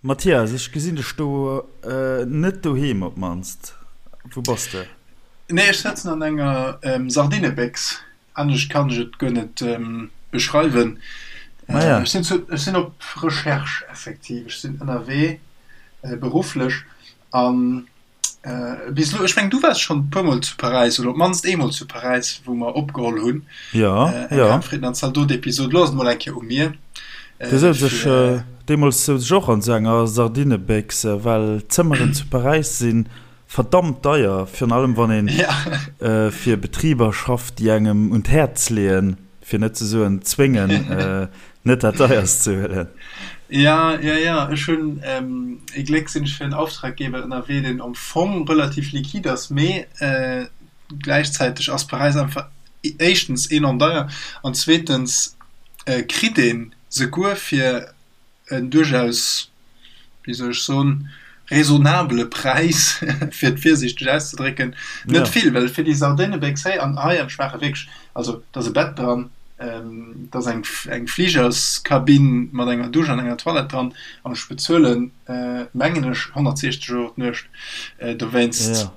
Mathias, ech gesinn dech do net doheem op d'mannst. Wou bass de? Nee, ech sëtzen an enger Sardinebéchs. Anescht kann ech et guer net beschreiwen. Ech sinn zu, ech sinn op Recherche effektiv. Ech sinn ënnerwee berufflech an Bis elo, ech mengen du waars schonn e puermol zu Paräis oder op d'mannst eemol zu Paräis, wou mer opgeholl hunn. Ja, Eng ja. Ham, Fritten an Zaldot-Episod. Elo ass et mol eng Kéier u mir. Du souz ech, Fir. deemools souz ech och an esou enger Sardinebéchs, well d'Zëmmeren zu Paräis si verdammt deier, virun allem wann een Ja. fir Betriber schafft, déi engem un d'Häerz leeën, fir net ze soen zwéngen, Net dat deierst ze huelen. Ja, ja, ja. Ech hunn ee Gléck sinn ech fir en Auftraggeber ënnerwee, deen am Fong relativ liquide ass, mee gläichzäiteg ass Paräis einfach éischtens enorm deier an zweetens kritt een souguer fir en duerchaus wéi soll ech soen, raisonnabele Präis, fir et virsiichteg auszedrécken, net vill, well fir déi Sardinebéchs héi an hei, an ech maache wierklech, also et ass e Bett dran, et ass eng eng Fligerskabinn mat enger Dusch an enger Toilette dran, an ech bezuelen, mengen ech, 160 Euro d'Nuecht dowéinst.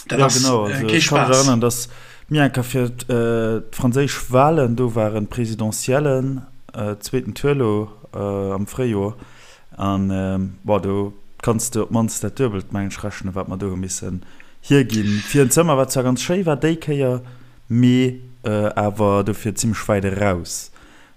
Dat ass kee Spaass. Ech ka mech erënneren, datt mir eng Kéier fir d'franséisch Walen do waren, d'Presidentiellen, zweeten Tour elo am Fréijoer, an bon, do kanns de op d'mannst dat Duebelt, mengen ech, rechnen, wat mer do hu missen hierginn fir en Zëmmer, wat zwar ganz schéi war déi Kéier, mee awer dofir zimmlech wäit eraus.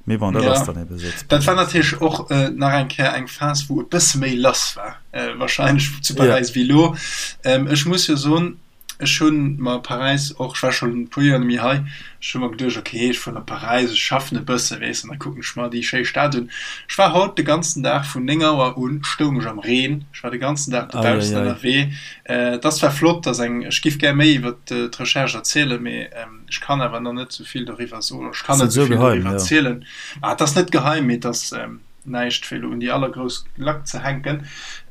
Mee bon, dat ass Ja, dann ebe sou zu dat war Paräis. natierlech och nach eng Kéier eng Phas, wou e bësse méi lass war warscheinlech zu Ja. Paräis wéi elo. Ech muss jo soen, ech hu mer Paräis och, ech war schonn e puer Joer net méi hei, ech hu mer geduecht, okay, ech fueren op Paräis, ech schaffen e bësse, weess, an da kucken ech mer déi schéi Stad un. Ech war haut de ganzen Dag vun 9 Auer un stoung ech am Reen, ech war de ganzen Dag dobaussen Eieiei. ënnerwee. Et ass zwar flott, dass eng, ech giff gär méi iwwer d'Recherche erzielen, mee Ech kann awer nach net sou vill doriwwer soen, ech kann Ass net net sou sou vill geheim, doriwwer jo. erzielen. Ah, et ass net geheim, mee et ass näischt fir elo un déi allergrouss Glack ze hänken.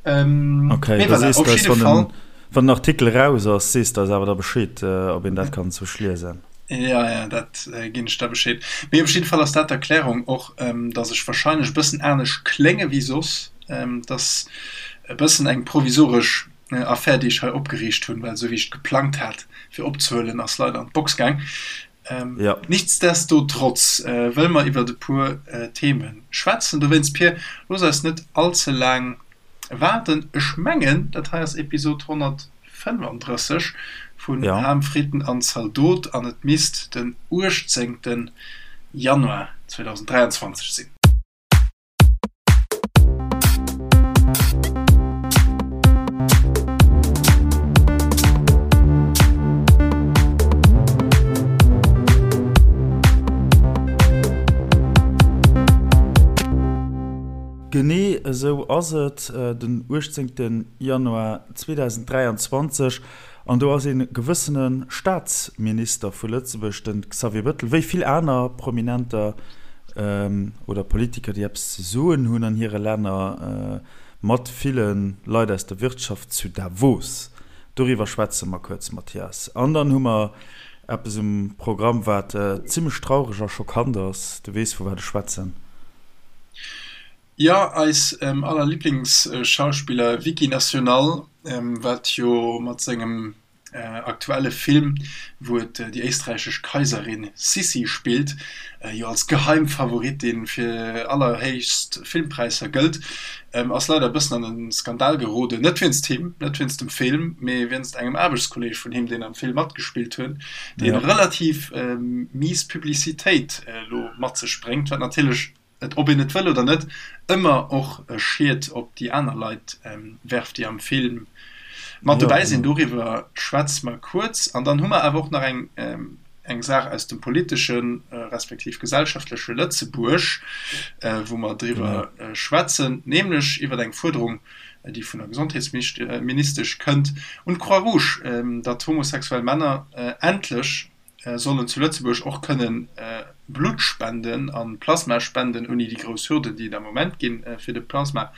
Okay, Mee da voilà, sees op de eis, jidde wann Fall. den, wann den Artikel eraus ass, sees de eis awer da Bescheed, ob een dat kann sou liesen. Ja, ja, dat ginn ech da Bescheed. Mee op jidde Fall ass dat d'Erklärung och, datt ech warscheinlech e bëssen anescht klénge wéi soss. Et ass e bëssen eng provisoresch Affär, déi ech hei opgeriicht hunn, well esou wéi ech et geplangt hat fir opzehuelen, ass leider an d'Box gaang. Ja. Nichtsdestotrotz wëlle mer iwwert e puer Theme schwätzen. Dowéinst, Pir, looss eis net all ze laang waarden. Ech mengen, dat hei ass Episod 135 vun Ja. Ham, Fritten an Zaldot an et misst den 18. Januar 2023 sinn. Genee esou ass et, den 18 Januar 2023, an do ass ee gewëssene Staatsminister vu Lëtzebuerg, de Xavier Bettel, wéi vill aner Prominenter oder Politiker, déi eppes ze soen hunn an hire Länner, mat ville Leit aus der Wirtschaft zu Davos. Doriwwer schwätze mer kuerz, Mathias. An dann hu mer eppes um Programm, wat zimmlech traureg a schockant ass. Du weess, vu wat ech schwätzen. Jo, eis aller Liblingsschauspiller Vicky National, wat jo mat sengem aktuelle Film, wou et déi éisträichesch Kaiserin Sissi spillt, jo als Geheimfavoritin fir allerhéichst Filmpräisser gëllt, ass leider e bëssen an e Skandal geroden. Net wéinst him, net wéinst dem Film, mee wéinst engem Aarbechtskolleeg vun him, deen am Film matgespillt huet, dee relativ mies Publicitéit elo mat sech bréngt, wat natierlech et, ob een et wëll oder net, ëmmer och e Schied op déi aner Leit werft, déi am Film mat dobäi sinn. Doriwwer schwätze mer kuerz. An dann hu mer awer och nach eng eng Saach aus dem politesche respektiv gesellschaftleche Lëtzebuerg, wou mer driwwer schwätzen, nämlech iwwer eng Fuerderung, déi vun der Gesondheetsministesch kënnt un d'Croix-Rouge, datt homosexuell Männer endlech sollen zu Lëtzebuerg och kënnen Blutt spenden an Plasma spenden, ouni déi grouss Hürden, déi et am Moment ginn fir de Plasma.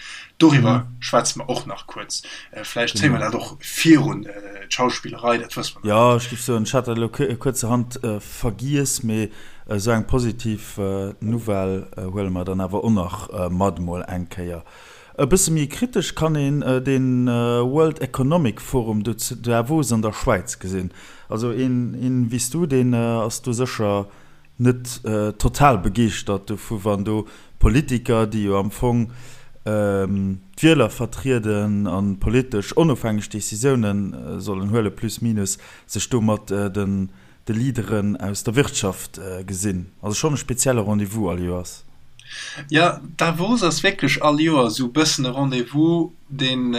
Doriwwer schwätze mer och nach kuerz. Vläicht zéie mer dat och virun d'Schauspillerei, dat wësse mer nach Jo, net. ech géif soen, ech hat dat elo kuerzerhand vergiess, mee esou eng positiv Nouvelle huele mer dann awer och nach mat emol eng Kéier. E bësse méi kritesch kann een de World Economic Forum do zu Davos an der Schwäiz gesinn. Also een wéi s du, deen ass do sécher net total begeeschtert dovu wann do Politiker, déi jo am Fong d'Wieler vertrieden a politesch onofhängeg Decisioune sollen huelen, plus minus, sech do mat de Leaderen aus der Wirtschaft gesinn. Also schonn e spezielle Rendez-vous all Joers. Jo, Davos ass wierklech all Joer esou e bëssen e Rendez-vous, deen,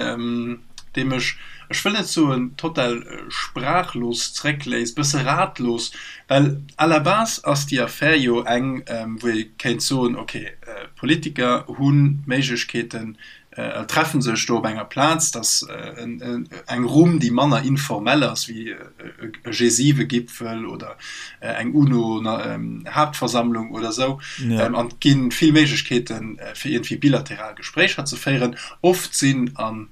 dee mech, ech wëll net soen total sprachlos zréckléisst, bësse ratlos, well à la base ass déi Affär jo eng, wou ee kéint soen, ok, Politiker hu Méiglechkeeten, treffen sech do op enger Plaz, dat ass eng Rumm, déi manner informell ass wéi e G7-Gipfel oder eng UNO-Haaptversammlung oder esou. An et gi vill Méiglechkeeten, fir iergendwéi bilateral Gespréicher ze féieren. Oft sinn an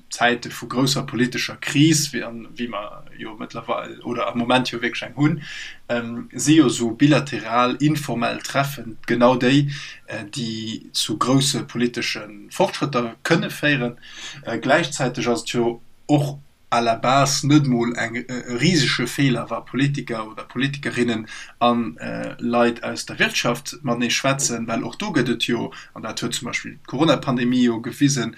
Zäite vu grousser politescher Kris, wéi mer jo mëttlerweil oder am Moment jo wierklech eng hunn, si jo esou bilateral, informell Treffen genau déi, déi zu grousse politesche Fortschrëtter kënne féieren. Gläichzäiteg ass et jo och à la base net mol eng e risege Feeler, wa Politiker oder Politikerinnen a Leit aus der Wirtschaft matenee schwätzen, well och do gëtt et jo, an dat huet zum Beispill d'Coronapandemie jo gewisen,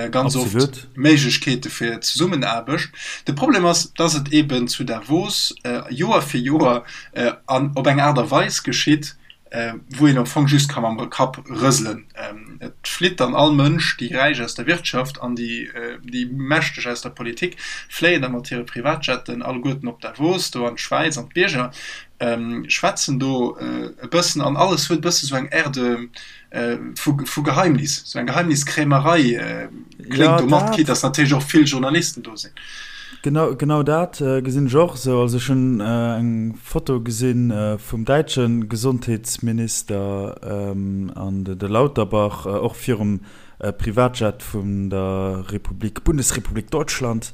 ganz oft Méiglechkeete fir Zesummenaarbecht. De Problem ass, dass et eeben zu Davos Joer fir Joer an op eng Aart a Weis geschitt, wou een am Fong just ka mam Kapp rëselen. Et flitt dann all Mënsch, déi Räich aus der Wirtschaft an déi déi Mächteg aus der Politik fléien da mat hire Privatjetten alleguerten op Davos, do an d'Schwäiz, an d'Bierger, schwätzen do e bëssen an alles huet e bësse sou eng Air de vu vu Geheimnis, sou eng Geheimniskrämerei kléngt do mat, quitte dass natierlech och vill Journalisten do sinn. Genau, genau dat gesinn ech och esou. Also ech hunn eng Foto gesinn vum däitsche Gesondheetsminister an de Lauterbach och virum Privatjet vun der Republik, Bundesrepublik Deutschland.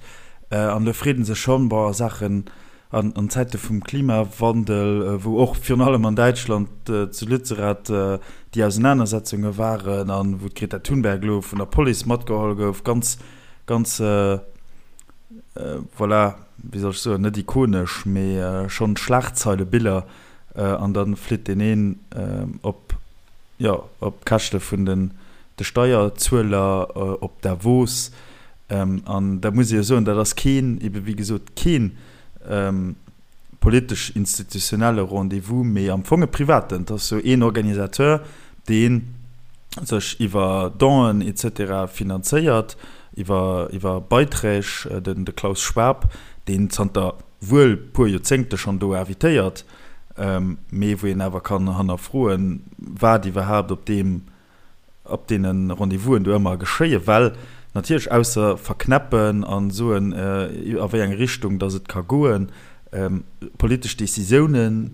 An do freet ee sech schonn, bon, a Saachen, an Zäite vum Klimawandel, wou och virun allem an Däitschland zu Lützerath déi Ausenanersetzunge waren a wou d'Greta Thunberg elo vun der Police matgeholl gouf, ganz, Ganz, voilà, wéi soll ech soen, net ikonesch, mee schonn Schlagzeilebiller. An da flitt deen een op, jo, op Käschte vun den de Steierzueler op Davos. An da muss ee jo soen, dat ass keen, ebe wéi gesot, keen politesch-institutionelle Rendez-vous, mee am Fong e privaten. Et ass sou een Organisateur, dee sech iwwer Donen et cetera finanzéiert, iwwer iwwer Beiträg, den de Klaus Schwab, deen zanter wuel puer Joerzéngte schonn do invitéiert, mee wou een awer kann hannerfroen, wat iwwerhaapt op deem op deene Rendez-vousen do ëmmer geschéien, well natierlech ausser verknäppen a soen, a wéi eng Richtung datt et ka goen, politesch Décisioune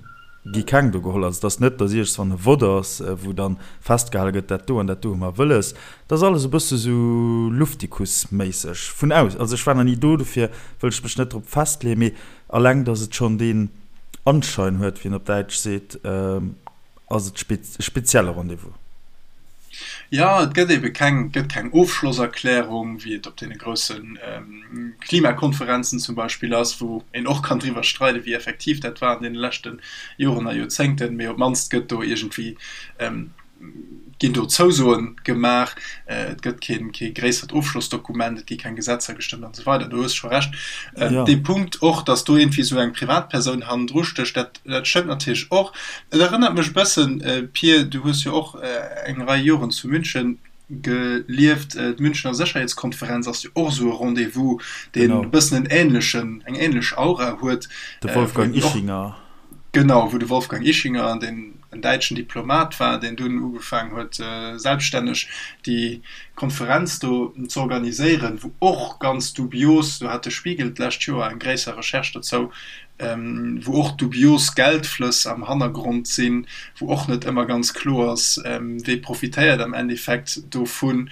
gi keng do geholl. Also et ass net, datt iergendswann e Vott ass, wou da festgehale gëtt, dat do an dat do hu mer wëlles. Et ass alles e bësse sou luftikus-méisseg vun aus. Also ech war nach ni do, dofir wëll ech mech net drop festleeën, mee alleng datt et schonn deen Anschein huet, wéi een op Däitsch seet, Ass et e spezielle Rendez-vous? Jo, et gëtt ebe keng, gëtt keng Ofschlosserklärung, wéi et op deene grousse Klimakonferenzen zum Beispill ass, wou een och kann driwwer streiden, wéi effektiv dat war an deene leschte Joren a Joerzéngten. Mee op d'mannst gëtt do iergendwéi, ginn do Zousoe gemaach. Et gëtt keen, kee gréissert Ofschlossdokument, et gi keng Gesetzer gestëmmt an esou weider. Do hues scho Recht. Dee Punkt och, datt do iergendwéi esou eng Privatpersoun hannendru stécht, dat, Dat stëmmt natierlech och. Et erënnert mech e bëssen, Pir, du hues jo och eng Rei Joren zu München gelieft, d'Münchener Sécherheetskonferenz ass jo och esou e Rendez-vous, deen e bëssen en änlechen, eng änlech Aura huet. De Wolfgang Ischinger. Genau, wou de Wolfgang Ischinger, deen en däitschen Diplomat war, deen dunn ugefaangen huet, selbststänneg déi Konferenz do z'organiséieren, wou och ganz dubios, do hat de Spiegel d'lescht Joer eng gréisser Recherche dozou, wou och dubios Geldflëss am Hannergrond sinn, wou och net ëmmer ganz kloer ass, wee profitéiert am Endeffekt dovun,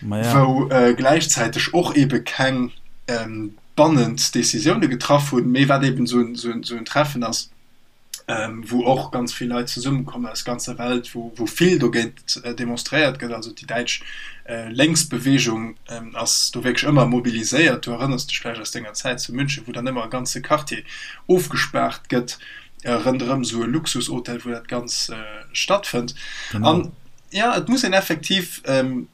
wou gläichzäiteg och eebe keng bannend Decisioune getraff hunn, mee wat eeben esou en Treffen ass. wou och ganz vill Leit zesummekommen aus ganzer Welt, wou wou vill dogéint demonstréiert gëtt. Also déi däitsch Lénksbeweegung ass do wierklech ëmmer mobiliséiert. Du erënners dech vläicht aus denger Zäit zu München, wou dann ëmmer e ganze Quartier ofgespaart gëtt ronderëm esou e Luxushotel, wou dat Ganz stattfënnt. An jo, et muss een effektiv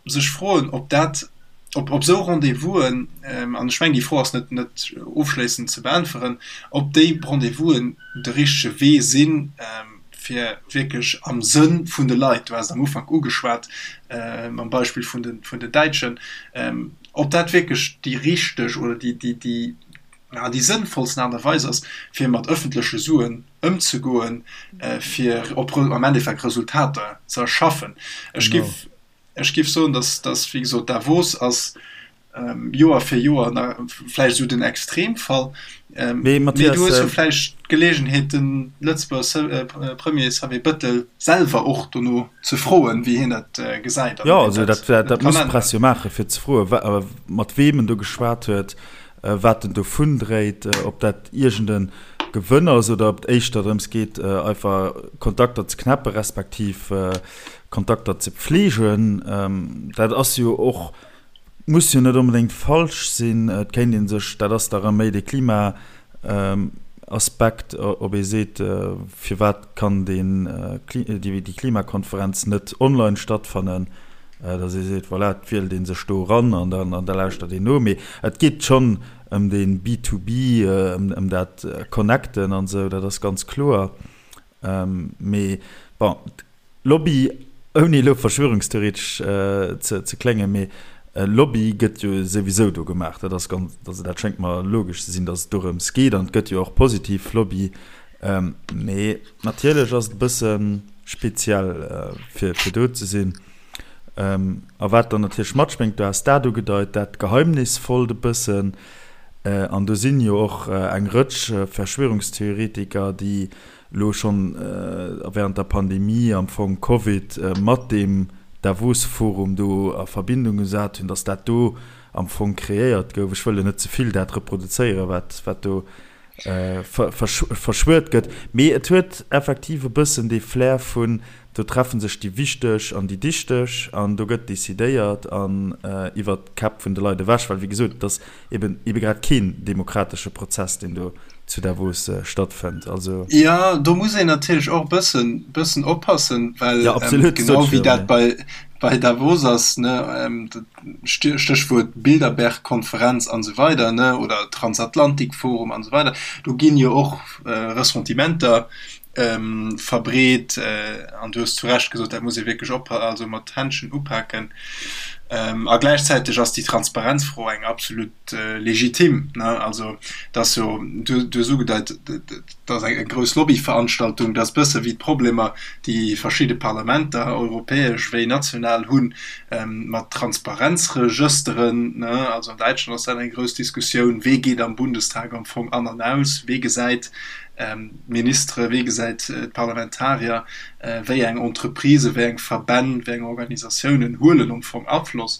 sech froen, ob dat ob op esou Rendez-vousen, an ech mengen, déi Fro ass net net ofschléissend ze beäntweren, ob déi Rendez-vousen de richtege Wee sinn, fir wierklech am Sënn vun de Leit, du has et am Ufank ugeschwat mam Beispill vun de vun den Däitschen, ob dat wierklech déi richteg oder déi déi déi déi sënnvollsten Aart a Weis ass, fir mat ëffentleche Suen ëmzegoen, fir op am Endeffekt Resultater ze erschaffen. Ech géif Ech géif soen, dass, dass wéi gesot, Davos ass Joer fir Joer na vläicht esou den Extremfall. Mee Mee Mathias, du hues jo vläicht d'Geleegenheet, de Lëtzebuerger Premier Xavier Bettel selwer och dono ze froen, wéi hien dat gesäit an ob jo, hien also dat dat, dat kann muss d'Press änneren. jo maachen, fir ze froen, mat weem en do geschwat huet, wat en dovun dréit, ob dat iergend e Gewënn ass oder ob et éischter drëms geet, einfach Kontakter ze knäppen, respektiv Kontakter ze pflegen. Dat ass jo och, muss jo net onbedéngt falsch sinn. Et kéint ee sech, dat ass da rëm méi de Klimaaspekt, ob ee seet, firwat kann deen, déi Klimakonferenz net online stattfannen, datt ee seet, voilà, et wielt ee sech do eran an da lauschtert een no. Mee et geet schonn ëm dee B-to-B, ëm dat Connecten an esou, dat ass ganz kloer. Mee bon, Lobby, ouni elo verschwörungstheoretesch ze kléngen, mee Lobby gëtt jo souwisou do gemaach. Dat ass ganz, also dat schéngt mer logesch ze sinn, datt et dorëms geet an et gëtt jo och positiv Lobby. Mee natierlech ass et e bësse speziell fir do ze sinn. A wat dann natierlech matschwéngt, du has dat ugedeit, dat Geheimnisvollt e bëssen. An do sinn jo och eng Rëtsch Verschwörungstheoretiker, déi elo schonn während der Pandemie am Fong Covid mat deem Davos-Forum do a Verbindung gesat hunn, datt dat do am Fong kreéiert gouf. Ech wëll elo net ze vill dat reproduzéieren, wat wat do verschwuert gëtt, mee et huet effektiv e bëssen dee Flair vun, do treffe sech déi Wichteg an déi Dichteg an do gëtt decidéiert an iwwert d'Käpp vun de Leit ewech, well wéi gesot, et ass eben ebe grad keen demokratesche Prozess, deen do zu Davos stattfënnt. Also. Jo, do muss een natierlech och e bëssen, bëssen oppassen, well Jo, absolut, genau sot wéi ech jo, dat mee. bei, bei Davos ass, ne, Stéchwuert Bilderberg-Konferenz an esou weider, ne, oder Transatlantikforum an esou weider, do ginn jo och Ressentimenter verbreet an du hues zu Recht gesot, dat muss ee wierklech op, also mat Händschen upaken. A gläichzäiteg ass déi Transparenzfro eng absolut legitim, ne, also et ass jo, du hues ugedeit, et ass eng grouss Lobbyveranstaltung, dat ass bësse wéi d'Problemer, déi verschidde Parlamenter, europäesch wéi national, hunn mat Transparenzregësteren, ne, also an Däitschland ass dat eng grouss Diskussioun, wee geet am Bundestag am Fong an an aus, wee gesäit d'Ministere, wee gesäit d'Parlamentarier, wéi eng Entreprisen, wéi eng Verbänn, wéi eng Organisatiounen huelen am Fong Afloss.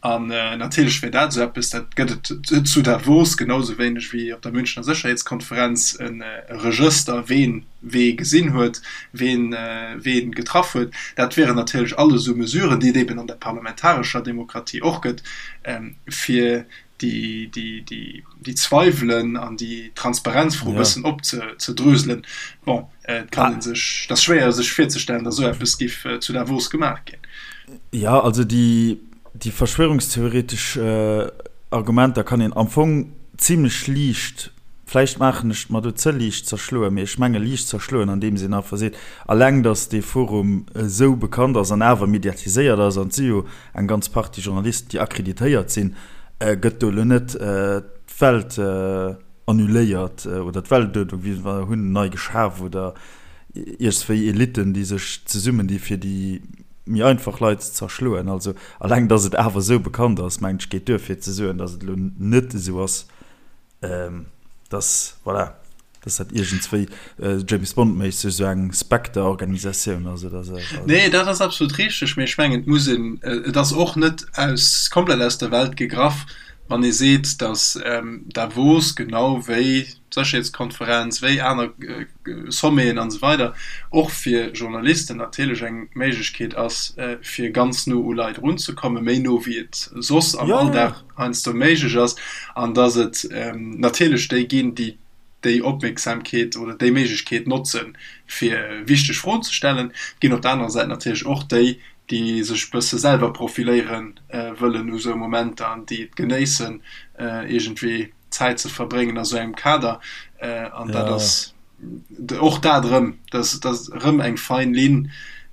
An natierlech wär dat esou eppes, dat gëtt et zu Davos genau esou wéineg wéi op der Münchener Sécherheetskonferenz, e Regëster, ween wee gesinn huet, ween wee getraff huet. Dat wieren natierlech alles esou Mesuren, déi et eben an der parlamentarescher Demokratie och gëtt, fir déi Zweiwelen an déi Transparenzfro e bëssen opzedröselen. Bon, et kann ee sech, et ass schwéier sech virzestellen, datt esou eppes géif zu Davos gemaach ginn. Jo, also déi Déi verschwörungstheoretesch Argumenter kann een am Fong zimlech liicht, vläicht maachen ech et mer do ze liicht, zerschloen, mee ech menge liicht zerschloen, andeems een einfach seet, alleng datt dee Forum esou bekannt ass an awer mediatiséiert ass, an et si jo eng ganz Partie Journalisten, déi akkreditéiert sinn, gëtt do elo net d'Welt annuléiert oder d'Weltuerdnung, wéi se hunn, nei geschaf oder iergswéi Elitten, déi sech zesummen di fir déi méi einfach Leit ze zerschloen. Also alleng datt et awer esou bekannt ass, mengen ech, geet duer fir ze soen, datt et elo net esou ass, datt, voilà, datt dat iergendswéi James Bond-méisseg esou eng Spectre-Organisatioun ass oder esou. Also. Nee, dat ass absolut richteg, mee ech mengen, et muss een, et ass och net aus, komplett aus der Welt gegraff. Wann ee seet, datt Davos genau wéi d'Sécherheetskonferenz, wéi aner Sommeten an esou weider och fir Journalisten natierlech eng Méiglechkeet ass, fir ganz no u Leit erunzekommen, méi no wéi et soss am Alldag heiansdo méiglech ass, an datt et natierlech déi ginn, déi déi Opmierksamkeet oder déi Méiglechkeet notzen, fir wichteg Froen ze stellen. Et ginn op der anerer Säit natierlech och déi, déi sech e bësse selwer profiléiere wëllen u sou Momenter an déi et genéissen, iergendwéi Zäit ze verbréngen a sou engem Kader. An dat ass och dat erëm, dat ass erëm eng fein Linn,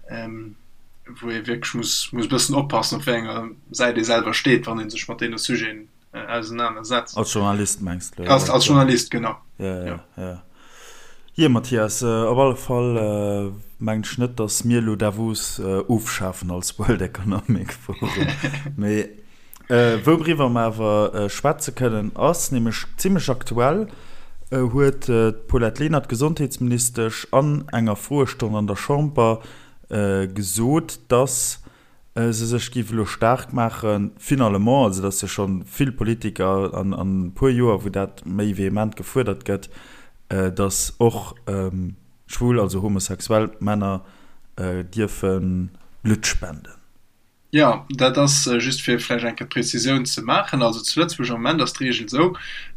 wou ee wierklech muss e bëssen oppassen, op wéi enger Säit ee selwer steet, wann ee sech mat deene Sujeten ausenanersetzt. Als Journalist mengs de? Als, als Journalist, genau. Ja, ja, ja. Jee, Mathias, op alle Fall mengen ech net, datt mir elo Davos ofschafen als World Economic Forum. Mee wouriwwer mer awer schwätze kënnen, ass nämlech zimmlech aktuell, huet d'Paulette Lenert, Gesondheetsministesch, an enger Froestonn an der Chamber gesot, datt se sech géif elo staark maachen, finalement, also et ass jo scho vill Politiker an e puer Joer, wou dat méi vehement gefuerdert gëtt, datt och schwul, also homosexuell Männer dierfe Blutt spenden. Jo, dat ass just fir vläicht eng Kéier d'Prezisioun ze maachen. Also zu Lëtzebuerg am Moment ass d'Reegel esou,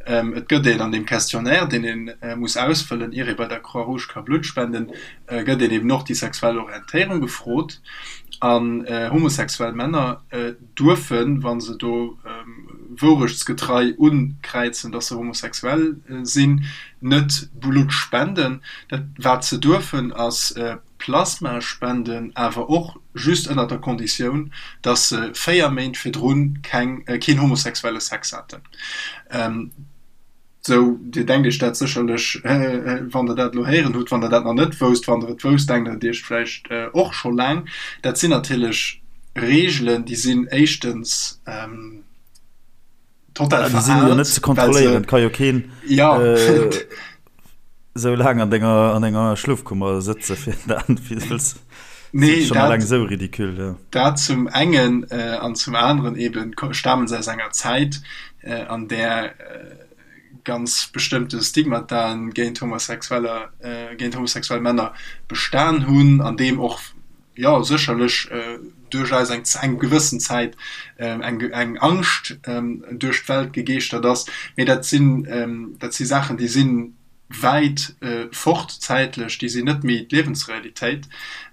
Et gëtt een an deem Questionnaire, deen ee muss ausfëllen, ier ee bei der Croix-Rouge ka Blutt spenden, gëtt een eben och déi sexuell Orientéierung gefrot. An homosexuell Männer duerfen, wa se do wourechtsgetrei unkräizen, datt se homosexuell sinn, net Blutt spenden. Dat wat se duerfen, ass Plasma spenden, awer och just ënner der Konditioun, datt se 4 Méint virdrun keng keen homosexuelle Sex haten. Sou, Dir denkt Iech dat sécherlech, wann Der dat elo héieren hutt, wann Der dat nach net wousst. Wann Der et wousst, denkt Der et Iech vläicht och scho laang. Dat sinn natierlech Reegelen, déi sinn éischtens total veraalt. Déi sinn jo net ze kontrolléieren. Et ka jo keen esou laang an denger, an enger Schlofkummer sëtze fir dat, fir wëlls. Nee, dat, alleng esou ridicule, ja. Dat zum engen an zum aneren eben stamen se aus enger Zäit, an där ganz bestëmmte Stigmataen géint Homosexueller, géint homosexuell Männer bestan hunn, an deem och, jo, sécherlech duerchaus eng eng gewëssen Zäit eng eng Angscht duerch d'Welt gegeeschtert ass. Mee dat sinn, dat si Saachen, déi sinn wäit fort zäitlech, déi sinn net méi d'Liewensrealitéit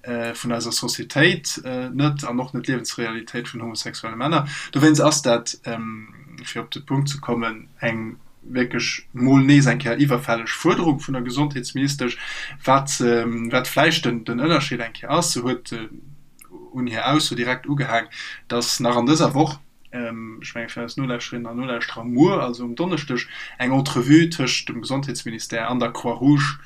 vun eiser Societéit net an och net d'Liewensrealitéit vun homosexuelle Männer. Dowéinst ass dat, fir op de Punkt ze kommen, eng wierklech mol nees eng Kéier iwwerfälleg Fuerderung vun der Gesondheetsministesch. Wat wat vläicht den Ënnerscheed eng Kéier ass, se huet un hir Ausso direkt ugehaang, datt nach an dëser Woch, ech menge fir eis Nolauschterinnen an Nolauschterer muer, also um Donneschdeg, eng Entrevue tëscht dem Gesondheetsministère an der Croix-Rouge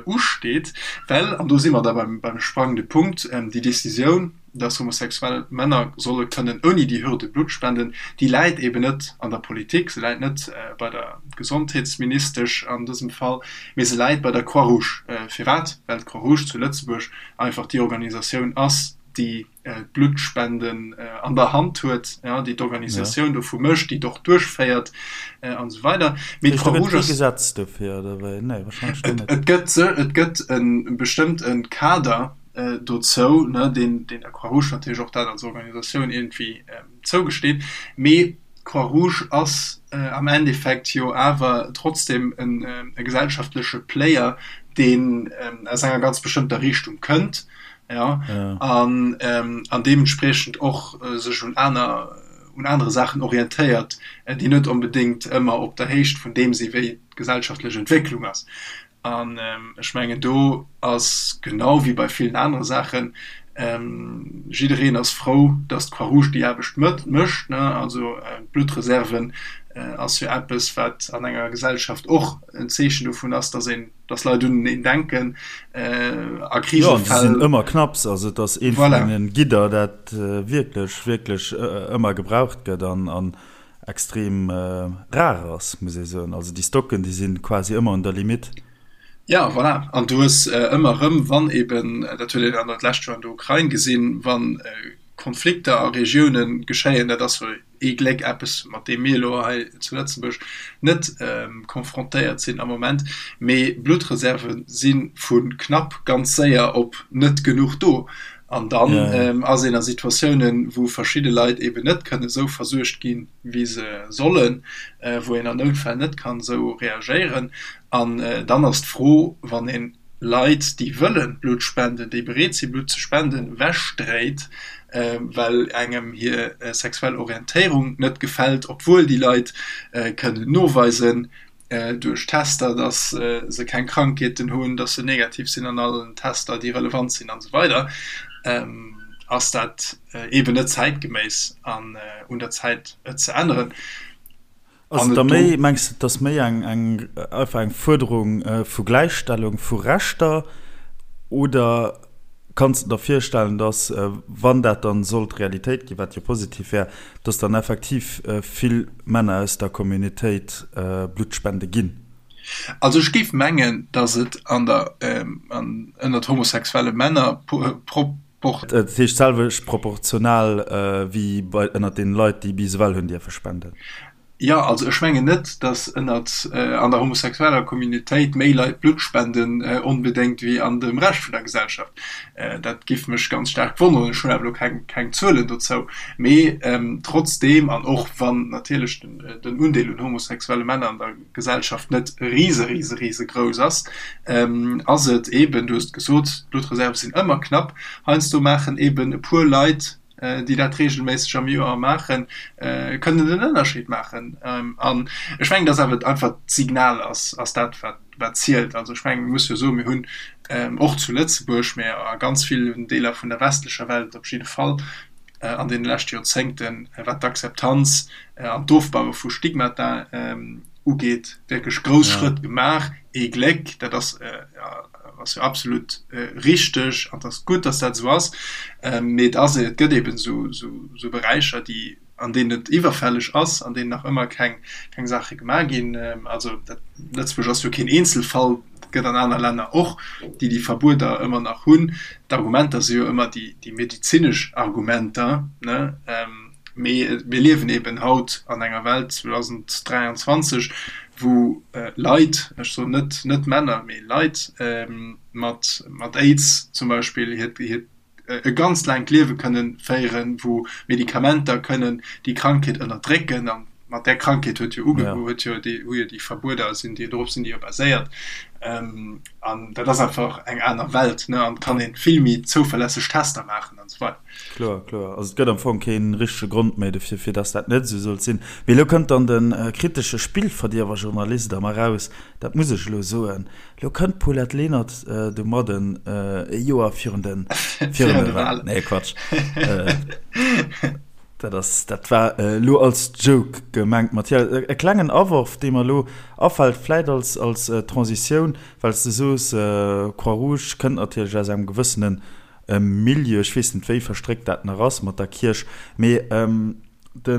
usteet, well, an do si mer da beim sprangende Punkt, déi Decisioun, dass homosexuell Männer solle kënnen ouni déi Hürde Blutt spenden, déi läit eben net an der Politik, se läit net bei der Gesondheetsministesch an dësem Fall, mee se läit bei der Croix-Rouge. Firwat? Well d'Croix-Rouge zu Lëtzebuerg einfach déi Organisatioun ass, déi d'Bluttspenden an der Hand huet, déi d'Organisatioun dovu mécht, déi et och duerchféiert an esou weider. Mee d'Croix-Rouge ass. Gëtt et kee Gesetz dofir oder wéi? Nee, warscheinlech net. Et gëtt, et gëtt e bestëmmte Kader dozou, deen der Croix-Rouge natierlech och dat als Organisatioun iergendwéi zougesteet. Mee d'Croix-Rouge ass am Endeffekt jo awer trotzdem e gesellschaftleche Player, deen aus enger ganz bestëmmter Richtung kënnt. ja, ja. an ähm, an deementspriechend och äh, sech un aner un anere Saachen orientéiert, äh, déi net onbedéngt ëmmer op der Héicht vun deem si wéi d'gesellschaftlech Entwécklung ass. An ähm, ech mengen do ass genau wéi bei villen anere Saachen ähm, jiddereen ass frou, datt d'Croix-Rouge déi Aarbecht mécht, ne? Also äh, d'Bluttreserven äh, ass jo eppes, wat an enger Gesellschaft och en Zeechen dovun ass, datt een dass Leit uneneen denken a Krisefäll. Jo, an se sinn ëmmer knapps. Also et ass eent vun deene Gidder, dat wierklech, wierklech ëmmer gebraucht gëtt an an extrem rar ass, muss ee soen. Also déi Stocken, déi si quasi ëmmer un der Limitt. Ja, voilà. An du hues ëmmer erëm, wann eeben, dat huet een an dat lescht Joer an der Ukrain gesinn, wa Konflikter a Regioune geschéien, dat ass jo. Ee Gléck eppes, mat deem mir elo hei zu Lëtzebuerg net confrontéiert sinn am Moment. Mee Bluttreserve si vu knapp ganz séier op net genuch do. An dann ass een a Situatiounen, wou verschidde Leit eeben net kënne sou versuergt ginn, wéi se sollen, wou een an Noutfäll net kann esou reagéieren. An dann ass d'Fro, wann ee Leit, déi wëlle Blutt spenden, déi bereet si Blutt ze spenden, ewechdréit, well engem hir sexuell Orientéierung net gefält, obwuel déi Leit kënnen noweisen duerch Tester, dass se keng Krankheeten hunn, dass se negativ sinn an allen Tester, déi relevant sinn an esou weider, ass dat eeben net zäitgeméiss an un der Zäit et ze änneren. Ass et da méi, mengs de, et ass méi eng eng einfach eng Fuerderung vu Gläichstellung vu Rechter oder kanns de der virstellen, dass, wann dat dann sollt Realitéit ginn, wat jo positiv wär, dass dann effektiv vill Männer aus der Communitéit Blutt spende ginn? Also ech géif mengen, dass et an der, ënnert homosexuelle Männer pro. Dat heescht d'selwecht proportional wéi bei ënnert den Leit, déi bis ewell hunn dierfe spenden? Jo, also ech mengen net, datt ënnert, an der homosexueller Communautéit méi Leit Blutt spenden onbedéngt wéi an dem Rescht vun der Gesellschaft. Dat giff mech ganz staark wonneren. Ech hunn awer elo keng, keng Zuelen dozou. Mee trotzdeem, an och wann natierlech den Undeel un homosexuelle Männer an der Gesellschaft net rise, rise, rise grouss ass, ass et eeben, du hues et gesot, d'Bluttreserve sinn ëmmer knapp. Heiansdo maachen eeben e puer Leit, déi dat reegelméisseg am Joer maachen, kënnen den Ënnerscheed maachen. An ech mengen, dass awer einfach d'Signal ass, ass dat, wat, wat zielt. Also ech mengen, mir musse jo soen, mir hunn och zu Lëtzebuerg, mä a ganz villen Deeler vun der westlecher Welt op jidde Fall an deene leschte Joerzéngten, wat d'Akzeptanz an d'Ofbaue vu Stigmata ugeet, wierklech grouss Schrëtt gemaach. Ee Gléck, dat ass ass jo absolut richteg an et ass gutt, datt dat esou ass. Mee et ass, et gëtt eeben esou Beräicher, déi, an deenen et iwwerfälleg ass, an deenen nach ëmmer keng, keng Saache gemaach ginn. Also dat, Lëtzebuerg ass jo keen Eenzelfall, et gëtt an aner Länner och, déi déi Verbueder ëmmer nach hunn. D'Argumenter si jo ëmmer déi, déi medezinesch Argumenter, ne? Mee mir liewen eben haut an enger Welt, 2023, wou Leit, ech soen net, net Männer, mee Leit mat, mat Aids zum Beispill hiert, hiert e ganz laangt Liewe kënnen féieren, wou Medikamenter kënnen déi Krankheet ënnerdrécken. An mat där Krankheet huet jo uge, huet jo déi, hu jo déi Verbueder, sinn déi, dorop sinn déi jo baséiert. An dat ass einfach eng aner Welt, ne, an et kann ee vill méi zouverlässeg Tester maachen an esou weider. Kloer, kloer. Also et gëtt am Fong kee richtege Grond méi dofir, fir dass dat net esou sollt sinn. Mee elo kënnt dann de kritesche Spillverdierwer-Journalist a mer raus, dat muss ech elo soen, elo kënnt d'Paulette Lenert domadden e Joer virun de, virun de Wahlen. Nee, Quatsch. Dat ass, dat war elo als Joke gemengt, Mathias. E klengen Aworf, dee mer elo afält, vläit als, als Transitioun, well s de soos, Croix-Rouge kënnt natierlech aus engem gewëssenen Milieu, ech weess net wéi verstréckt dat nach ass mat der Kierch, mee de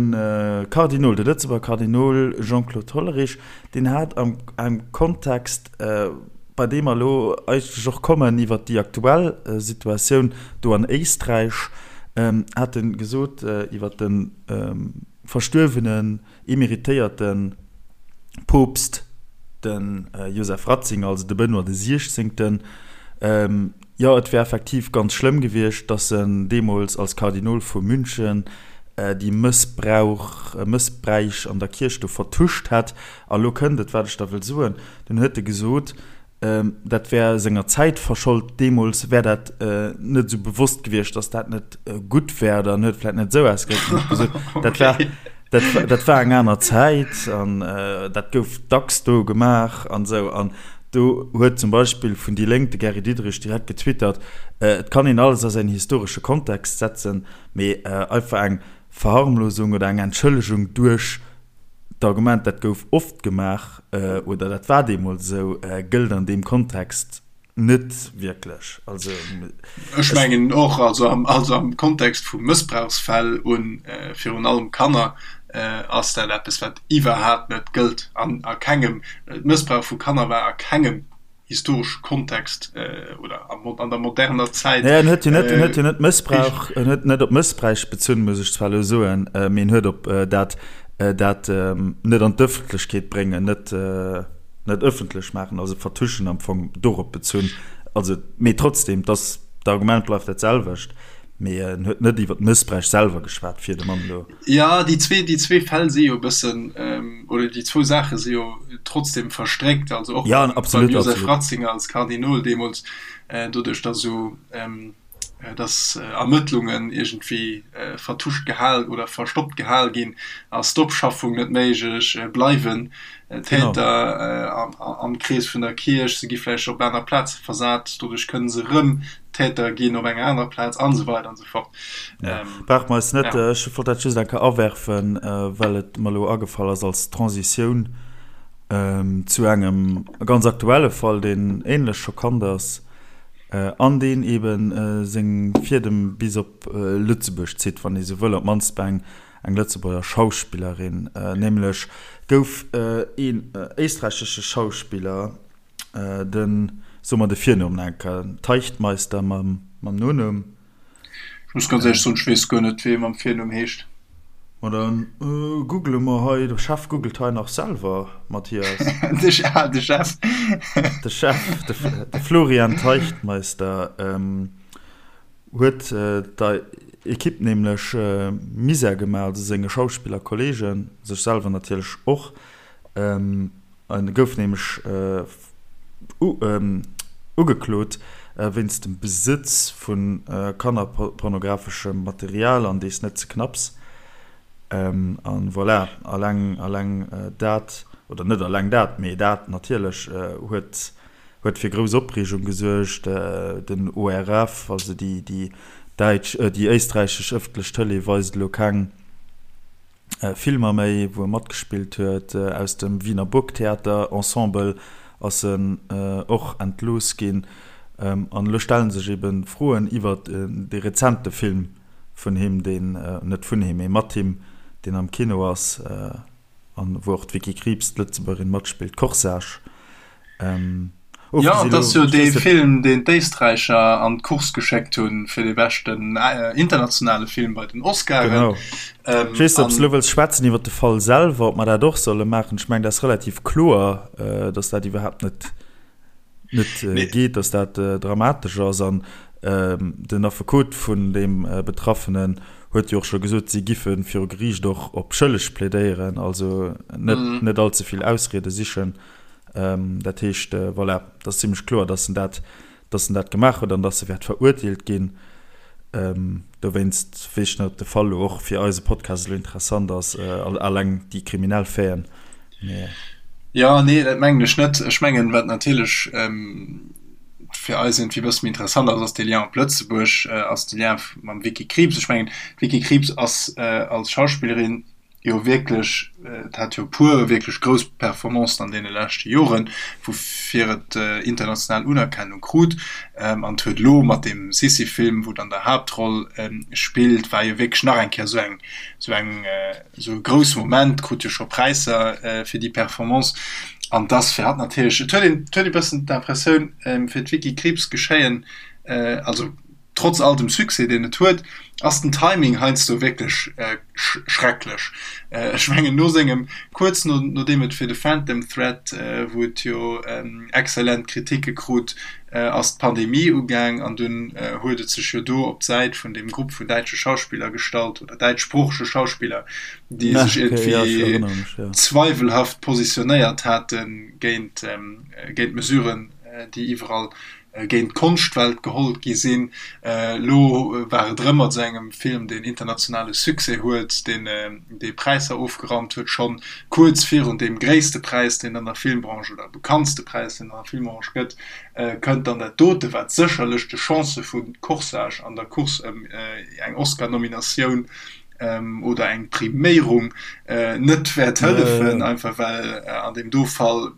Kardinol, de Lëtzebuerger Kardinol Jean-Claude Hollerich, deen hat am engem Kontext, bei deem mer elo eigentlech och kommen iwwert déi aktuell Situatioun do an Éisträich, hat e gesot iwwert de verstuerwenen, emeritéierte Poopst, de Joseph Ratzinger, also de Benoît de Siechzéngten, Jo, et wär effektiv ganz schlëmm gewiescht, datt en deemools als Kardinol vu München déi Mëssbrauch, Mëssbräich an der Kierch do vertuscht hätt. A lo kënnt et, wat ech da wëll soen, Dunn huet e gesot, dat wär senger Zäit verschold, deemools wär dat net esou bewosst gewiescht, datt dat net gutt wär, oder en huet vläicht net esou ausgedréckt, en huet gesot, dat war, dat, dat war eng aner Zäit an dat gouf dacks do gemaach an esou. An Do huet zum Beispill vun déi Lénk de Gary Diderich direkt getwittert, Et kann een alles a säin historesche Kontext setzen, mee einfach eng Verharmlosung oder eng Entschëllegung duerch d'Argument, dat gouf oft gemaach oder dat war deemools esou, gëllt an deem Kontext net wierklech. Also ech mengen och, also am, also am Kontext vu Mëssbrauchsfäll u virun allem Kanner, ass dat eppes, wat iwwerhaapt net gëllt an a kengem, Mëssbrauch vu Kanner war a kengem. historesche Kontext oder an der moderner Zäit. Naja, en huet jo net, en huet jo net Mëssbrauch, en huet net op Mëssbräich bezunn, muss ech zwar elo soen, mee en huet op dat, dat net an d'Ëffentlechkeet bréngen, net, net ëffentlech maachen, also vertuschen am Fong, dorop bezunn. Also, mee trotzdem, dass, d'Argument bleift dat selwecht, mee en huet net iwwer d'Mëssbräich selwer geschwat, fir de Mann elo. Jo, déi zwee, déi zwee Fäll si jo e bëssen, oder déi zwou Saache si jo trotzdem verstréckt. Also och ja, absolut, beim Josef Ratzinger als Kardinol deemools, doduerch datt esou, datt Ermëttlungen iergendwéi vertuscht gehal oder verstoppt gehal ginn, ass d'Opschaffung net méiglech, bleiwen Täter am Krees vun der Kierch, se gi vläicht op aner Plaze versat, doduerch kënne se erëm Täter ginn op enger anerer Plaz an esou weider an esou fort. Ja. Brauche mer eis net, ja. Ech wollt dat just eng Kéier awerfen, well et mer elo agefall ass als Transitioun ähm, zu engem ganz aktuelle Fall, deen ähnlech schockant ass äh, an deen eben äh, seng Fiedem bis op äh, Lëtzebuerg zitt, wann ee sou wëll, op d'mannst bei eng eng Lëtzebuerger Schauspillerin. Äh, nämlech gouf äh, een äh, éisträichesche Schauspiller, Den, so mer de Virnumm nach eng Kéier, Teichtmeister mam, mam Nonumm. Ech muss ganz éierlech soen, ech weess guer net, wéi e mam Virnumm heescht. Ma dann google mer hei, de Chef googelt hei nach selwer, Mathias. De, ah, de Chef. De Chef, de, de Florian Teichtmeister, huet der Ekipp nämlech Misär gemaach, also senge Schauspillerkolleegen, sech selwer natierlech och. En gouf nämlech ugeklot wéinst dem Besëtz vu kannerpornografeschem Material, an dees net ze knapps. An voilà, alleng alleng dat, oder net alleng dat, mee dat natierlech huet huet fir grouss Opreegung gesuergt. Den ORF, also déi déi däitsch, déi éisträichesch ëffentlech Tëlee weist elo keng Filmer méi, wou e matgespillt huet. Aus dem Wiener Burgtheater Ensemble ass en och entlooss ginn. An elo stelle sech ebe Froen iwwer dee rezente Film vun him, deen, net vun him, mee mat him, deen am Kino ass an wou och d'Vicky Krieps, d'Lëtzebuergerin, matspillt, Corsage. Jo, et ass jo dee Film, deen d'Éisträicher an d'Course geschéckt hunn fir de beschten internationale Film bei den Oscaren. Genau. Ech weess net, ob s de elo wëlls schwätzen iwwer de Fall selwer, ob mer dat och solle maachen. Ech mengen, dat ass relativ kloer, datt dat iwwerhaapt net, net geet, datt dat dramatesch ass. An den Affekot vun deem Betraffenen huet jo och scho gesot, si giffe viru Geriicht och op schëlleg plädéieren, also net, net allze vill Ausriede sichen. Dat heescht, voilà, et ass zimlech kloer, dass en dat, dass en dat gemaach huet an dass e wäert verurteelt ginn. Dowéinst weess ech net, ob de Fall elo och fir eise Podcast elo interessant ass, alleng déi kriminell Faiten. Mee. Jo, nee, dat mengen ech net. Ech mengen, wat natierlech fir eis iergendwéi e bësse méi interessant ass, ass dee Lien op Lëtzebuerg, ass de Lien mam Vicky Krieps. Ech mengen, d'Vicky Krieps ass als Schauspillerin, jo wierklech, et hat jo e puer wierklech grouss Performancen an deene leschte Joren, woufir et international Unerkennung krut. An et huet elo mat deem Sissi-Film, wou et an der Haaptroll spillt, war jo wierklech nach eng Kéier esou eng, esou eng, esou e grousse Moment, krut jo scho Präisser fir déi Performance. An et ass fir hatt natierlech, et huet een, et huet ee bëssen d'Impressioun, fir d'Vicky Krieps geschéien, also Trotz all dem Succès, deen et huet, ass den Timing heiansdo wierklech schrecklech. Ech mengen, no sengem, kuerz no nodeem et fir The Phantom Thread, wou et jo exzellent Kritike krut, ass d'Pandemie ugaang an dunn huet et sech jo do op d'Säit vun deem Grupp vun däitsche Schauspiller gestallt oder däitschsproochege Schauspiller, déi sech iergendwéi zweiwelhaft positionéiert hate géint d'Mesuren, déi iwwerall géint d'Konschtwelt geholl gi sinn. Elo war et erëm mat esou engem Film, deen internationale Succès huet, deen dee Präisser ofgeraumt huet, schonn kuerz virun deem gréisste Präis, deen an der Filmbranche oder bekanntste Präis, deen an der Filmbranche gëtt, kënnt dann dat dote, wat sécherlech de Chancë vu Corsage an der Course ëm eng Oscar-Nominatioun oder eng Priméierung net wäert hëllefen, einfach well an deem do Fall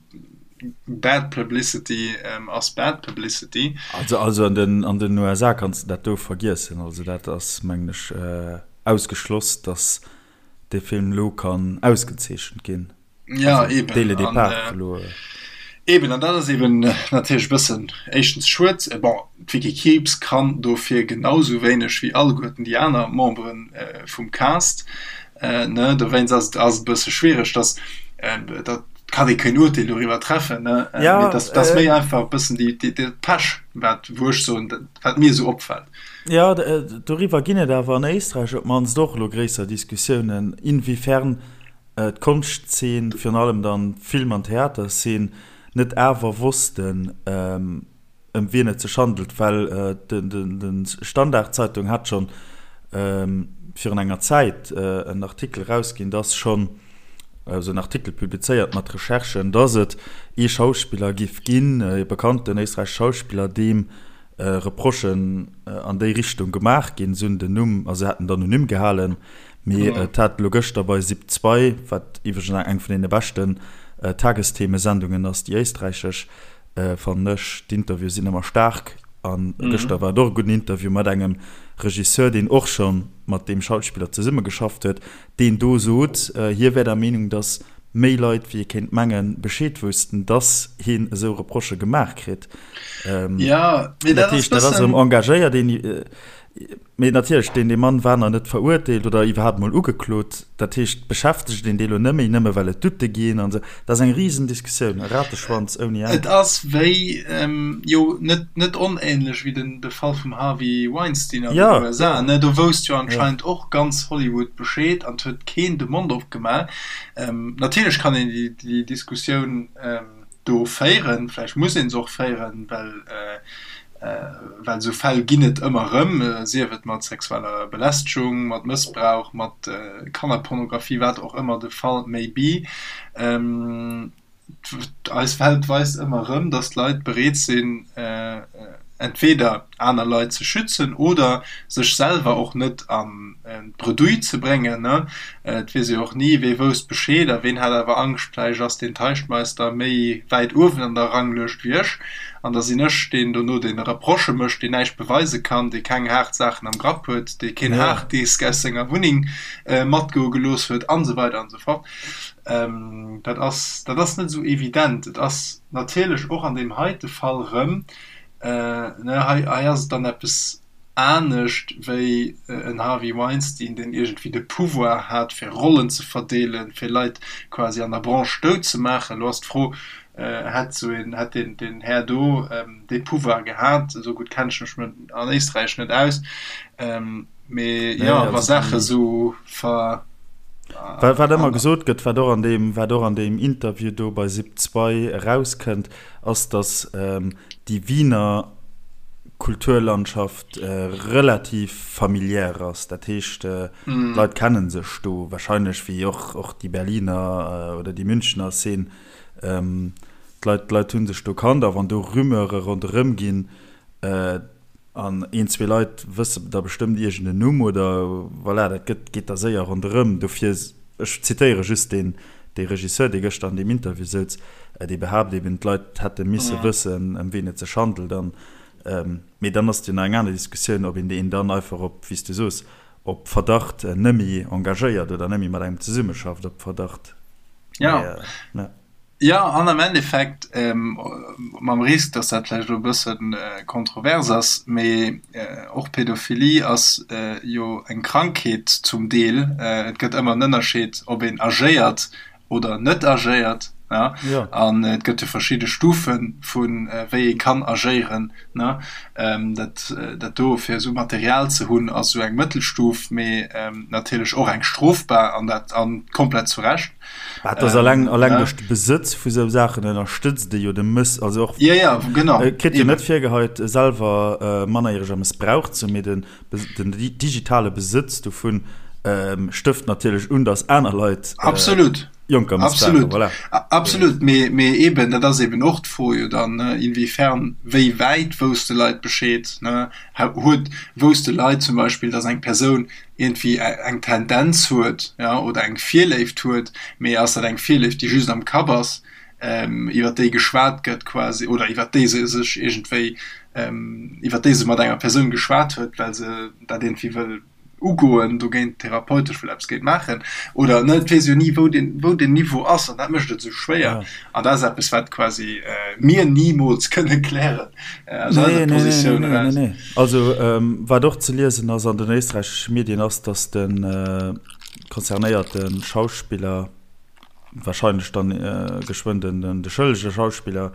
Bad Publicity ass bad Publicity. Also also an den an den USA kanns de dat do vergiessen. Also dat ass mengen ech ausgeschloss, datt dee Film elo kann ausgezeechent ginn. Ja eben. Dès le départ elo. Eben, an dat ass eben natierlech e bëssen éischtens schued. Bon, d'Vicky Krieps kann dofir genau sou wéineg wéi alleguerten déi aner Membere vum Cast, ne, dowéinst ass et ass et e bësse schwiereg, dass dat kann ee keen Urteel doriwwer treffen, ne, mee dass dass méi einfach e bëssen déi déi dat Pech, wat wou ech soen, wat mir esou opfält. Jo, doriwwer ginn et awer an Éisträich op d'mannst och elo gréisser Diskussiounen, inwiefern d'Konschtzeen, virun allem dann d'Film an Theaterszeen, net awer wossten, ëm wien et sech handelt, well de Standard-Zeitung hat schonn virun enger Zäit en Artikel erausginn, dass schonn, also en Artikel publizéiert mat Recherchen, dass et ee Schauspiller giff ginn, ee bekannten éisträichesche Schauspiller, deem Reprochen an déi Richtung gemaach ginn. Se hunn den Numm, also se haten d'Anonym gehalen, mee et hat elo gëschter bei Sip 2, wat iwwregens eng vun deene beschten Tagesthemesendungen ass, déi éisträichesch, fannen ech, d'Interviewe sinn ëmmer staark a gëschter war et och e gudden Interview mat engem Regisseur, deen och scho mat deem Schauspiller zesummegeschafft huet, deen do sot, hie wär der Meenung, datt méi Leit wéi ee kéint mengen Bescheed woussten, datt hien esou Reprochë gemaach kritt. Ja, mee dat ass dat ass erëm engagéiert een, mee natierlech deen dee Mann war nach net verurteelt oder iwwerhaapt mol ugeklot. Dat heescht beschäftegt een dee lo net méi, nëmme well et Doute ginn an esou. Dat ass eng Risendiskussioun, e Rateschwanz ouni Enn. Et ass wéi, jo net net onähnlech wéi den de Fall vum Harvey Weinstein an den USA, ne? Do wousst jo anscheinend och ganz Hollywood Bescheed an et huet keen de Mond opgemaach. Natierlech kann een déi déi Diskussioun do féieren. Vläicht muss ee se och féieren, well well esou Fäll ginn et ëmmer erëm, sief et mat sexueller Belästegung, mat Mëssbrauch, mat Kannerpornografie, wat och ëmmer de Fall may be. Eis Welt weist ëmmer erëm, datt d'Leit bereet sinn, entweder aner Leit ze schützen oder sech selwer och net an d'Bredouille ze bréngen. Et weess ee jo och ni, wee wousst Bescheed a ween hat awer Angscht, vläicht ass deen Teichtmeister méi wäit uewen an der Ranglëscht wéi ech an da sinn ech deen dono, deen Reprochë mécht, deen näischt beweise kann, dee keng haart Saachen am Grapp huet, dee keen Harddisk aus senger Wunneng matgoe gelooss huet an esou weider an esou fort. Dat ass, dat ass net esou evident. Et ass natierlech och an deem heite Fall erëm, hei, hei ass et dann eppes anescht wéi en Harvey Weinstein, deen iergendwéi de Pouvoir hat, fir Rollen ze verdeelen, fir Leit quasi an der Branche dout ze maachen. Elo ass d'Fro, Hätt esou een, hätt deen, deen Här do dee Pouvoir gehat? Esou gutt kenne ech mech an Éisträich net aus. Mee jo, wa Saache esou ver. Wat ëmmer gesot gëtt, wat och an deem, wat och an deem Interview do bei Sip 2 erauskënnt, ass, datt déi Wiener Kulturlandschaft relativ familiär ass. Dat heescht, d'Leit kenne sech do wahrscheinlech, wéi och och déi Berliner oder déi Münchener Szene. D'Leit, d'Leit hu sech do kannt a wann do Rumeure ronderëm ginn, An een, zwee Leit wësse da bestëmmt iergend en Numm oder voilà, dat gëtt, geet da séier ronderëm. Dofir, ech zitéiere just deen, dee Regisseur, dee gëschter an deem Interview souz, dee behaapt eben, d'Leit hätte misse wëssen, ëm wien et sech handelt. An, mee dann ass et jo nach eng aner Diskussioun, ob een deen dann einfach op, wéi s du soos, op Verdacht nëmme engagéiert oder nëmme mat engem zesummeschafft op Verdacht. Mee, ja. Jo, an am Endeffekt, mam Risk, dass dat vläicht elo e bësse kontrovers ass, mee och Pädophilie ass jo eng Krankheet zum Deel. Et gëtt ëmmer en Ënnerscheed, ob een agéiert oder net agéiert. An et gëtt jo verschidde Stufe vu wéi ee kann agéieren. Dat dat do, fir esou Material ze hunn, ass esou eng Mëttelstuf, mee natierlech och eng strofbar an dat a komplett zu Recht. Dat ass alleng, alleng duerch de Besëtz vu sou Saachen ënnerstëtzt e jo de Mëss, also och ja, ja, genau. Et kritt jo net virgeheit selwer mannerjäreger mëssbraucht ze hunn, mee den, den digitale Besëtz dovun stëft natierlech un, datt aner Leit Absolut. Jonker mëssbrauchen. Absolut. Voilà. Absolut, mee, mee eben, dat ass eben och d'Fro jo dann, ne, inwiefern, wéi wäit wousste Leit Bescheed, ne? Huet, wousste Leit zum Beispill, datt eng Persoun iergendwéi eng Tendenz huet, ja, oder eng Virléift huet, mee ass dat eng Virléift, déi just am Kapp ass, iwwer déi geschwat gëtt quasi, oder iwwer déi se sech iergendwéi, iwwer déi se mat enger Persoun geschwat huet, well se dat iergendwéi wëll. Ugoen, dogéint therapeutesch wëll eppes géint maachen oder net. Et weess jo ni, wou den, wou den Niveau ass an dat mécht et esou schwéier. An dat ass eppes, wat quasi mir nimools kënne klären aus eiser Positioun eraus. Nee, nee, nee, nee. Also wat och ze liesen ass an den éisträichesche Medien ass, datt de concernéierte Schauspiller, wahrscheinlech dann geschwënn den de schëllege Schauspiller,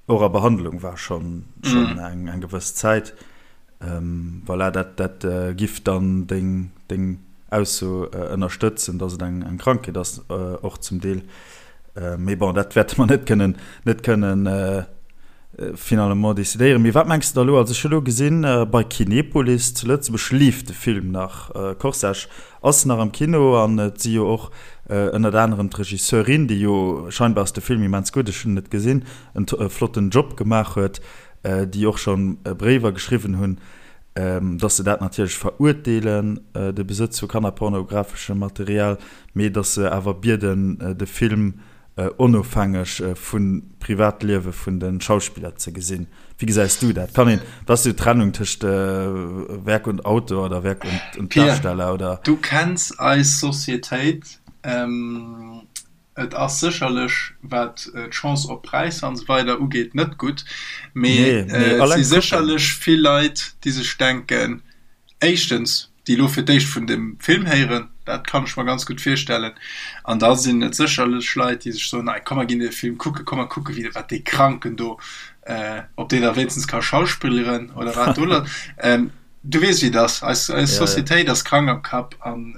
och a Behandlung war schonn schonn eng eng gewëss Zäit. Voilà, dat dat giff dann deng deng Ausso ënnerstëtzen, datt et eng eng Krankheet ass och zum Deel. Mee bon, dat wäerte mer net kënnen net kënnen finalement decidéieren. Mee wat mengs de da elo? Also ech hu elo gesinn, bei Kinepolis zu Lëtzebuerg leeft de Film nach, Corsage Ass nach am Kino an et si jo och ënnert anerem d'Regisseurin, déi jo, scheinbar ass de Film immens gutt, ech hunn en net gesinn, en flotten Job gemaach huet, déi och scho Bréiwer geschriwwen hunn, dass se dat natierlech verurteelen, de Besëtz vu kannerpornografeschem Material, mee dass se awer bieden, de Film onofhängeg vum Privatliewe vun de Schauspiller ze gesinn. Wéi gesäis du dat? Kann een, wat ass déi Trennung tëscht Werk und Autor oder Werk und Darsteller oder? Du kenns eis Societéit. Et ass sécherlech, wat d'Chance op Präisser an esou weider ugeet, net gutt, mee et si sécherlech vill Leit, déi sech denken, éischtens, déi elo fir d'éischt vun dem Film héieren, dat kann ech mer ganz gutt virstellen, an da sinn et sécherlech Leit, déi sech soen, ei komm mer ginn dee Film kucken, komm mer kucken, wéi wat dee Kranken do, ob deen da wéinstens ka schauspilleren oder wat do lass. Du weess wéi et ass, eis eis Societéit ass krank am Kapp an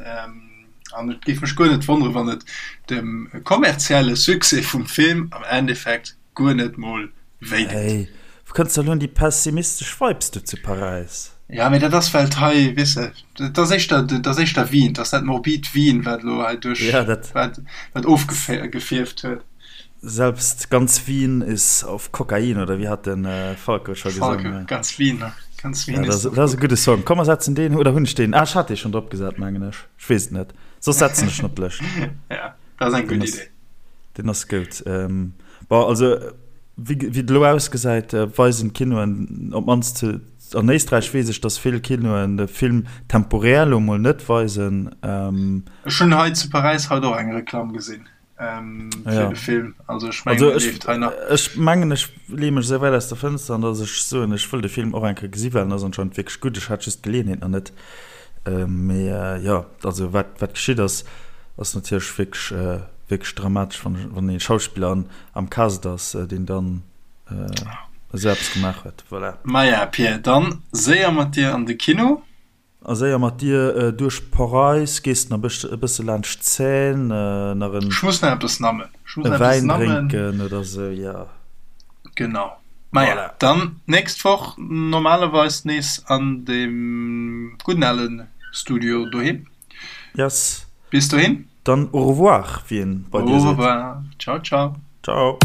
an et géif mech guer net wonnere wann et dem kommerzielle Succès vum Film am Endeffekt guer net mol wéi deet. Hey, wou kënns de elo un déi pessimistesch Vibes do zu Paräis? Ja, mee dat ass well et hei, weess de, dat ass éischter, dat ass éischter Wien, dat ass dat morbid Wien, wat elo hei duerch, Ja, dat. wat, wat ofgefierft huet. Selbst ganz Wien ist auf Kokain, oder wéi hat den Falco scho gesongen? Falco, ganz Wien, ganz Wien ja, ist auf. Dat ass e gudde Song. Komm, mer setzen deen, oder hunn ech deen? Ah, ech hat dee schonn drop gesat, mengen ech. Ech weess et net. Soss setzen ech en op d'Lëscht. Ja, dat ass eng gutt Idee. Deen ass goud. Bon, also wéi et elo ausgesäit, weisen d'Kinoen, op d'mannst zu, an Éisträich weess ech, datt vill Kinoen de Film temporär elo mol net weisen. Ech hunn hei zu Paräis haut och eng Reklamm gesinn fir de Film. Also ech mengen, dee leeft hei nach. Ech mengen, ech leeë mech esou wäit aus der Fënster, an datt ech soen, ech wëll de Film och eng Kéier gesi well en ass anscheinend wierklech gutt. Ech hat just d'Geleeënheet nach net. Mee jo, also wat wat geschitt ass, ass natierlech wierklech wierklech dramatesch, wann wann ee Schauspiller an am Cast ass, deen dann esou eppes gemaach huet. Voilà. Maja Pir, dann séier mat dir an de Kino. A séier mat dir duerch Paräis, gees nach e bësse laanscht d'Seine, nach en Ech muss nach eppes nammen. Ech muss nach eppes Wäin nammen. drénken oder sou, jo. Genau. Maja, voilà. Dann nächst Woch normalerweis nees an dem gudden alen Studio doheem. Yes. Bis dohin. Dann au revoir, wéi een bei dir seet. Au revoir. Ciao, ciao. Ciao.